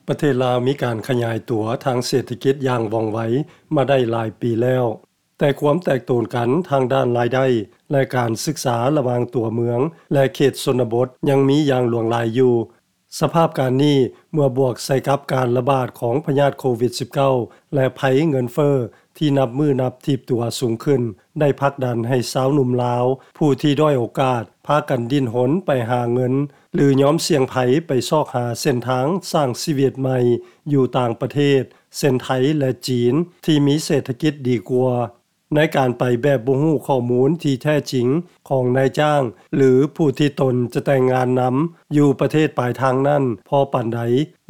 ປະເທດລາວມີການຂະຫຍາຍຕົວທາງເສດຖະກິດຢ່າງວ່ອງໄວມາໄດ້ຫຼາຍປີແລ້ວ, ແຕ່ຄວາມແຕກໂຕນກັນທາງດ້ານລາຍໄດ້ ແລະ ການສຶກສາລະຫວ່າງຕົວເມືອງ ແລະ ເຂດຊົນນະບົດຍັງມີຢ່າງຫຼວງຫຼາຍຢູ່. ສະພາບການນີ້ ເມື່ອບວກໃສ່ກັບການລະບາດຂອງພະຍາດໂຄວິດ-ສິບເກົ້າ ແລະ ໄພເງິນເຟີ້ທີ່ນັບມື້ນັບຖີບຕົວສູງຂຶ້ນ ໄດ້ຜັກດັນໃຫ້ຊາວໜຸ່ມລາວ ຜູ້ທີ່ດ້ອຍໂອກາດ ພາກັນດີ້ນຮົນໄປຫາເງິນ ຫຼື ຍອມສ່ຽງໄພໄປຊອກຫາເສັ້ນທາງສ້າງຊີວິດໃໝ່ຢູ່ຕ່າງປະເທດ ເຊັ່ນ ໄທ ແລະ ຈີນ ທີ່ມີເສດຖະກິດດີກວ່າ. ໃນການໄປແບບບໍ່ຮູ້ຂໍ້ມູນທີ່ແທ້ຈິງຂອງນາຍຈ້າງ ຫຼື ຜູ້ທີ່ຕົນຈະແຕ່ງງານນຳ ຢູ່ປະເທດປາຍທາງນັ້ນພໍປານໃດ,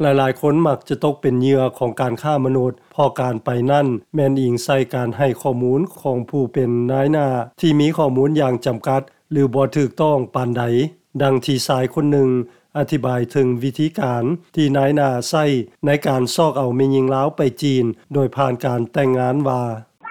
ຫຼາຍໆຄົນມັກຈະຕົກເປັນເຫຍື່ອຂອງການຄ້າມະນຸດ, ເພາະການໄປນັ້ນແມ່ນອີງໃສ່ການໃຫ້ຂໍ້ມູນຂອງຜູ້ເປັນນາຍໜ້າທີ່ມີຂໍ້ມູນຢ່າງຈຳກັດ ຫຼື ບໍ່ຖືກຕ້ອງປານໃດ. ດັ່ງທີ່ຊາຍຄົນໜຶ່ງອະທິບາຍເຖິງວິທີການທີ່ນາຍໜ້າໃຊ້ໃນການຊອກເອົາແມ່ຍິງລາວໄປຈີນ ໂດຍຜ່ານການແຕ່ງງານວ່າ: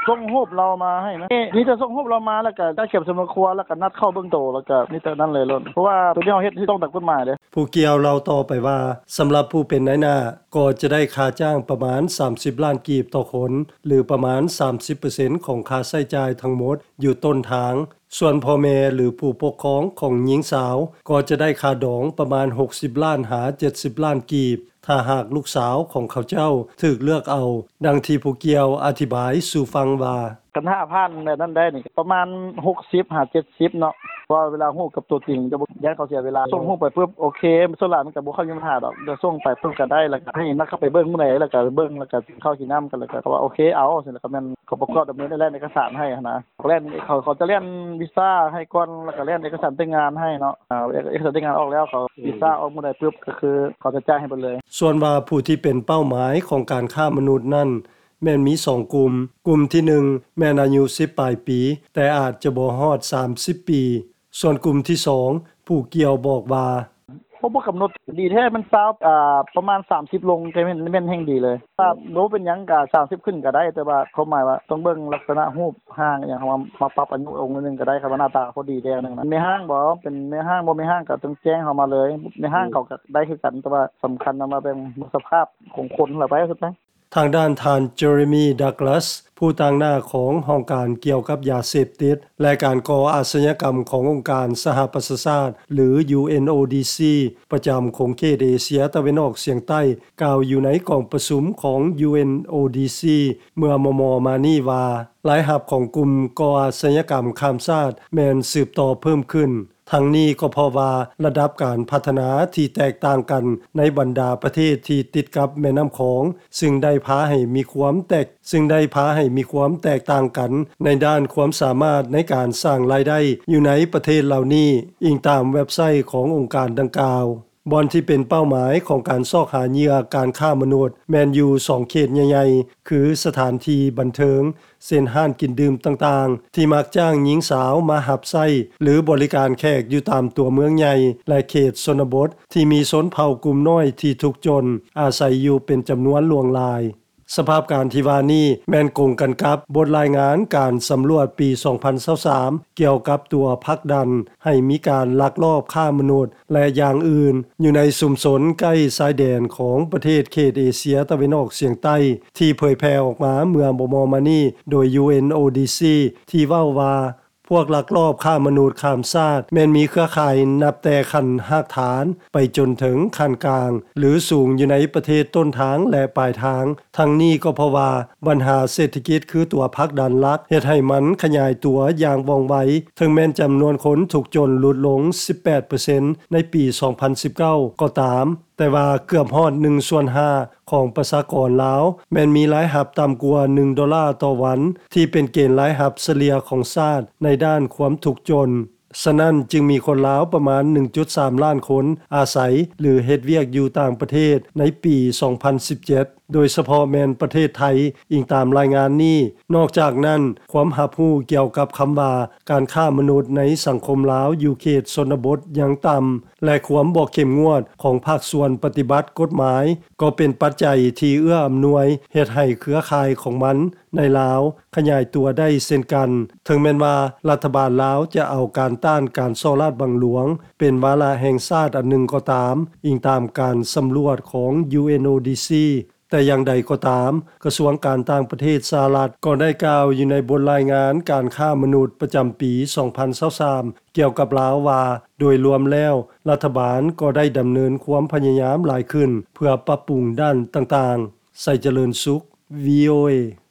ສົ່ງຮູບລາວມາໃຫ້ນະ ມີແຕ່ສົ່ງຮູບລາວມາ ແລ້ວກະຈັດເກັບສຳນວນຄົວ ແລ້ວກະນັດເຂົ້າເບິ່ງໂຕ ແລ້ວກະມີແຕ່ນັ້ນເລີຍໂລດ ເພາະວ່າໂຕນີ້ເຮົາເຮັດຖືກຕ້ອງຕາມກົດໝາຍເດ້. ຜູ້ກ່ຽວເລົ່າຕໍ່ໄປວ່າ ສຳລັບຜູ້ເປັນນາຍໜ້າກໍຈະໄດ້ຄ່າຈ້າງປະມານສາມສິບລ້ານກີບຕໍ່ຄົນ ຫຼື ປະມານສາມສິບເປີເຊັນຂອງຄ່າໃຊ້ຈ່າຍທັງໝົດຢູ່ຕົ້ນທາງ. ສ່ວນພໍ່ແມ່ ຫຼື ຜູ້ປົກຄອງຂອງຍິງສາວ ກໍຈະໄດ້ຄ່າດອງປະມານຫົກສິບລ້ານຫາເຈັດສິບລ້ານກີບ ຖ້າຫາກລູກສາວຂອງເຂົາເຈົ້າຖືກເລືອກເອົາ, ດັ່ງທີ່ຜູ້ກ່ຽວອະທິບາຍສູ່ຟັງວ່າ: ຄັນຖ້າຜ່ານແບບນັ້ນໄດ້ນີ້ ປະມານຫົກສິບຫາເຈັດສິບເນາະ, ເພາະວ່າເວລາຮູ້ກັບຕົວຈິງ ຢ້ານເຂົາເສຍເວລາ. ສົ່ງຮູບໄປປຶບ ໂອເຄ ສ່ວນຫຼາຍມັນກະບໍ່ຄ່ອຍມີບັນຫາດອກ, ແຕ່ສົ່ງໄປປຶບກະໄດ້ ແລ້ວກະໃຫ້ນັດເຂົ້າໄປເບິ່ງມື້ໃດ ແລ້ວກະເບິ່ງ ແລ້ວກະກິນເຂົ້າກິນນ້ຳກັນ ແລ້ວກະເຂົາວ່າໂອເຄ ເອົາ ແລ້ວກະແມ່ນ ເຂົາປະກອບດຳເນີນແລ່ນເອກະສານໃຫ້ຫັ້ນນະ. ແລ່ນ ເຂົາ ເຂົາຈະແລ່ນວີຊາໃຫ້ກ່ອນ ແລ້ວກະແລ່ນເອກະສານແຕ່ງງານໃຫ້ເນາະ. ອາ ເອກະສານແຕ່ງງານອອກແລ້ວ ເຂົາ ອືມ ວີຊາອອກມື້ໃດປຶບ ກະຄືເຂົາຈະຈ່າຍໃຫ້ເບິດເລີຍ. ສ່ວນວ່າຜູ້ທີ່ເປັນເປົ້າໝາຍຂອງການຄ້າມະນຸດນັ້ນ ແມ່ນມີສອງກຸ່ມ, ກຸ່ມທີໜຶ່ງແມ່ນອາຍຸສິບປາຍປີ ແຕ່ອາດຈະບໍ່ຮອດສາມສິບປີ, ສ່ວນກຸ່ມທີສອງ ຜູ້ກ່ຽວບອກວ່າ: ໂອ້ ບໍ່ກຳນົດ ດີແທ້ແມ່ນຊາວ ອາ ປະມານສາມສິບລົງ ແຕ່ແມ່ນ ແມ່ນແຮ່ງດີເລີຍ. ຖ້າບໍ່ເປັນຫຍັງກະສາມສິບຂຶ້ນກະໄດ້ ແຕ່ວ່າຄວາມໝາຍວ່າຕ້ອງເບິ່ງລັກສະນະຮູບຮ່າງອີ່ຫຍັງ ເຮົາມາ ມາປັບອາຍຸລົງໜ້ອຍໜຶ່ງກະໄດ້ ຄັນວ່າໜ້າຕາເຂົາດີແດ່ໜຶ່ງນະ. ແມ່ຮ້າງບໍ່ ເປັນແມ່ຮ້າງບໍ່ແມ່ຮ້າງກະຕ້ອງແຈ້ງເຮົາມາເລີຍ. ແມ່ຮ້າງເຂົາກະໄດ້ຄືກັນ ແຕ່ວ່າສຳຄັນນຳວ່າເບິ່ງສະພາບຂອງຄົນລະໄປສຸດໄປ. ທາງດ້ານທ່ານ Jeremy Douglas ຜູ້ຕາງໜ້າຂອງຫ້ອງການກ່ຽວກັບຢາເສບຕິດ ແລະ ການກໍ່ອາຊະຍາກຳຂອງອົງການສະຫະປະຊາຊາດ ຫຼື UNODC ປະຈຳຂົງເຂດເອເຊຍຕາເວັນອອກສຽງໃຕ້ ກ່າວຢູ່ໃນກອງປະຊຸມຂອງ UNODC ເມື່ອມໍ່ໆມານີ້ວ່າ ລາຍຮັບຂອງກຸ່ມກໍ່ອາຊະຍາກຳຂ້າມຊາດແມ່ນສືບຕໍ່ເພີ່ມຂຶ້ນ. ທັງນີ້ກໍເພາະວ່າລະດັບການພັດທະນາທີ່ແຕກຕ່າງກັນໃນບັນດາປະເທດທີ່ຕິດກັບແມ່ນ້ຳຂອງ ຊຶ່ງໄດ້ພາໃຫ້ມີຄວາມແຕກ ຊຶ່ງໄດ້ພາໃຫ້ມີຄວາມແຕກຕ່າງກັນໃນດ້ານຄວາມສາມາດໃນການສ້າງລາຍໄດ້ຢູ່ໃນປະເທດເຫຼົ່ານີ້, ອີງຕາມເວັບໄຊຂອງອົງການດັ່ງກ່າວ. ບ່ອນທີ່ເປັນເປົ້າໝາຍຂອງການຊອກຫາເຫຍື່ອການຄ້າມະນຸດ ແມ່ນຢູ່ສອງເຂດໃຫຍ່ໆ ຄືສະຖານທີ່ບັນເທີງ ເຊັ່ນ ຮ້ານກິນດື່ມຕ່າງໆ ທີ່ມັກຈ້າງຍິງສາວມາຮັບໃຊ້ ຫຼື ບໍລິການແຂກຢູ່ຕາມຕົວເມືອງໃຫຍ່ ແລະ ເຂດຊົນນະບົດ ທີ່ມີຊົນເຜົ່າກຸ່ມນ້ອຍທີ່ທຸກຈົນ ອາໄສຢູ່ເປັນຈຳນວນຫຼວງຫຼາຍ. ສະພາບການທີ່ວ່ານີ້ແມ່ນກົງກັນກັບບົດລາຍງານການສຳຫຼວດປີສອງພັນຊາວສາມ ກ່ຽວກັບຕົວຜັກດັນໃຫ້ມີການລັກລອບຄ້າມະນຸດ ແລະ ຢ່າງອື່ນ ຢູ່ໃນຊຸມຊົນໃກ້ຊາຍແດນຂອງປະເທດເຂດເອເຊຍຕາເວັນອອກສຽງໃຕ້ ທີ່ເຜີຍແຜ່ອອກມາເມື່ອບໍ່ດົນມານີ້ໂດຍ UNODC ທີ່ເວົ້າວ່າ ພວກລັກລອບຄ້າມະນຸດຂ້າມຊາດແມ່ນມີເຄືອຂ່າຍນັບແຕ່ຂັ້ນຮາກຖານໄປຈົນເຖິງຂັ້ນກາງ ຫຼື ສູງຢູ່ໃນປະເທດຕົ້ນທາງ ແລະ ປາຍທາງ. ທັງນີ້ກໍເພາະວ່າບັນຫາເສດຖະກິດຄືຕົວຜັກດັນຫຼັກ ເຮັດໃຫ້ມັນຂະຫຍາຍຕົວຢ່າງວ່ອງໄວ, ເຖິງແມ່ນຈຳນວນຄົນທຸກຈົນຫຼຸດລົງສິບແປດເປີເຊັນໃນປີສອງພັນສິບເກົ້າກໍຕາມ, ແຕ່ວ່າເກືອບຮອດໜຶ່ງສ່ວນຫ້າຂອງປະຊາກອນລາວ ແມ່ນມີລາຍຮັບຕ່ຳກວ່າໜຶ່ງໂດລາຕໍ່ວັນ ທີ່ເປັນເກນລາຍຮັບສະເລ່ຍຂອງຊາດໃນດ້ານຄວາມທຸກຈົນ. ສະນັ້ນຈຶ່ງມີຄົນລາວປະມານໜຶ່ງຈຸດສາມລ້ານຄົນອາໄສ ຫຼື ເຮັດວຽກຢູ່ຕ່າງປະເທດໃນປີສອງພັນສິບເຈັດ ໂດຍສະເພາະແມ່ນປະເທດໄທ, ອີງຕາມລາຍງານນີ້. ນອກຈາກນັ້ນ, ຄວາມຮັບຮູ້ກ່ຽວກັບຄຳວ່າການຄ້າມະນຸດໃນສັງຄົມລາວຢູ່ເຂດຊົນນະບົດຍັງຕ່ຳ ແລະ ຄວາມບໍ່ເຂັ້ມງວດຂອງພາກສ່ວນປະຕິບັດກົດໝາຍ ກໍເປັນປັດໄຈທີ່ເອື້ອອຳນວຍເຮັດໃຫ້ເຄືອຂ່າຍຂອງມັນ ໃນລາວຂະຫຍາຍຕົວໄດ້ເຊັ່ນກັນ, ເຖິງແມ່ນວ່າລັດຖະບານລາວຈະເອົາການຕ້ານການສໍ້ລາດບັງຫຼວງເປັນວາລະແຫ່ງຊາດອັນໜຶ່ງກໍຕາມ, ອີງຕາມການສຳຫຼວດຂອງ UNODC ແຕ່ຢ່າງໃດກໍຕາມ, ກະຊວງການຕ່າງປະເທດສະຫະລັດກໍໄດ້ກ່າວຢູ່ໃນບົດລາຍງານການຄ້າມະນຸດປະຈຳປີ ສອງພັນຊາວສາມ ກ່ຽວກັບລາວວ່າ ໂດຍລວມແລ້ວ ລັດຖະບານກໍໄດ້ດຳເນີນຄວາມພະຍາຍາມຫຼາຍຂຶ້ນ ເພື່ອປັບປຸງດ້ານຕ່າງໆ. ໄຊຈະເລີນສຸກ VOA.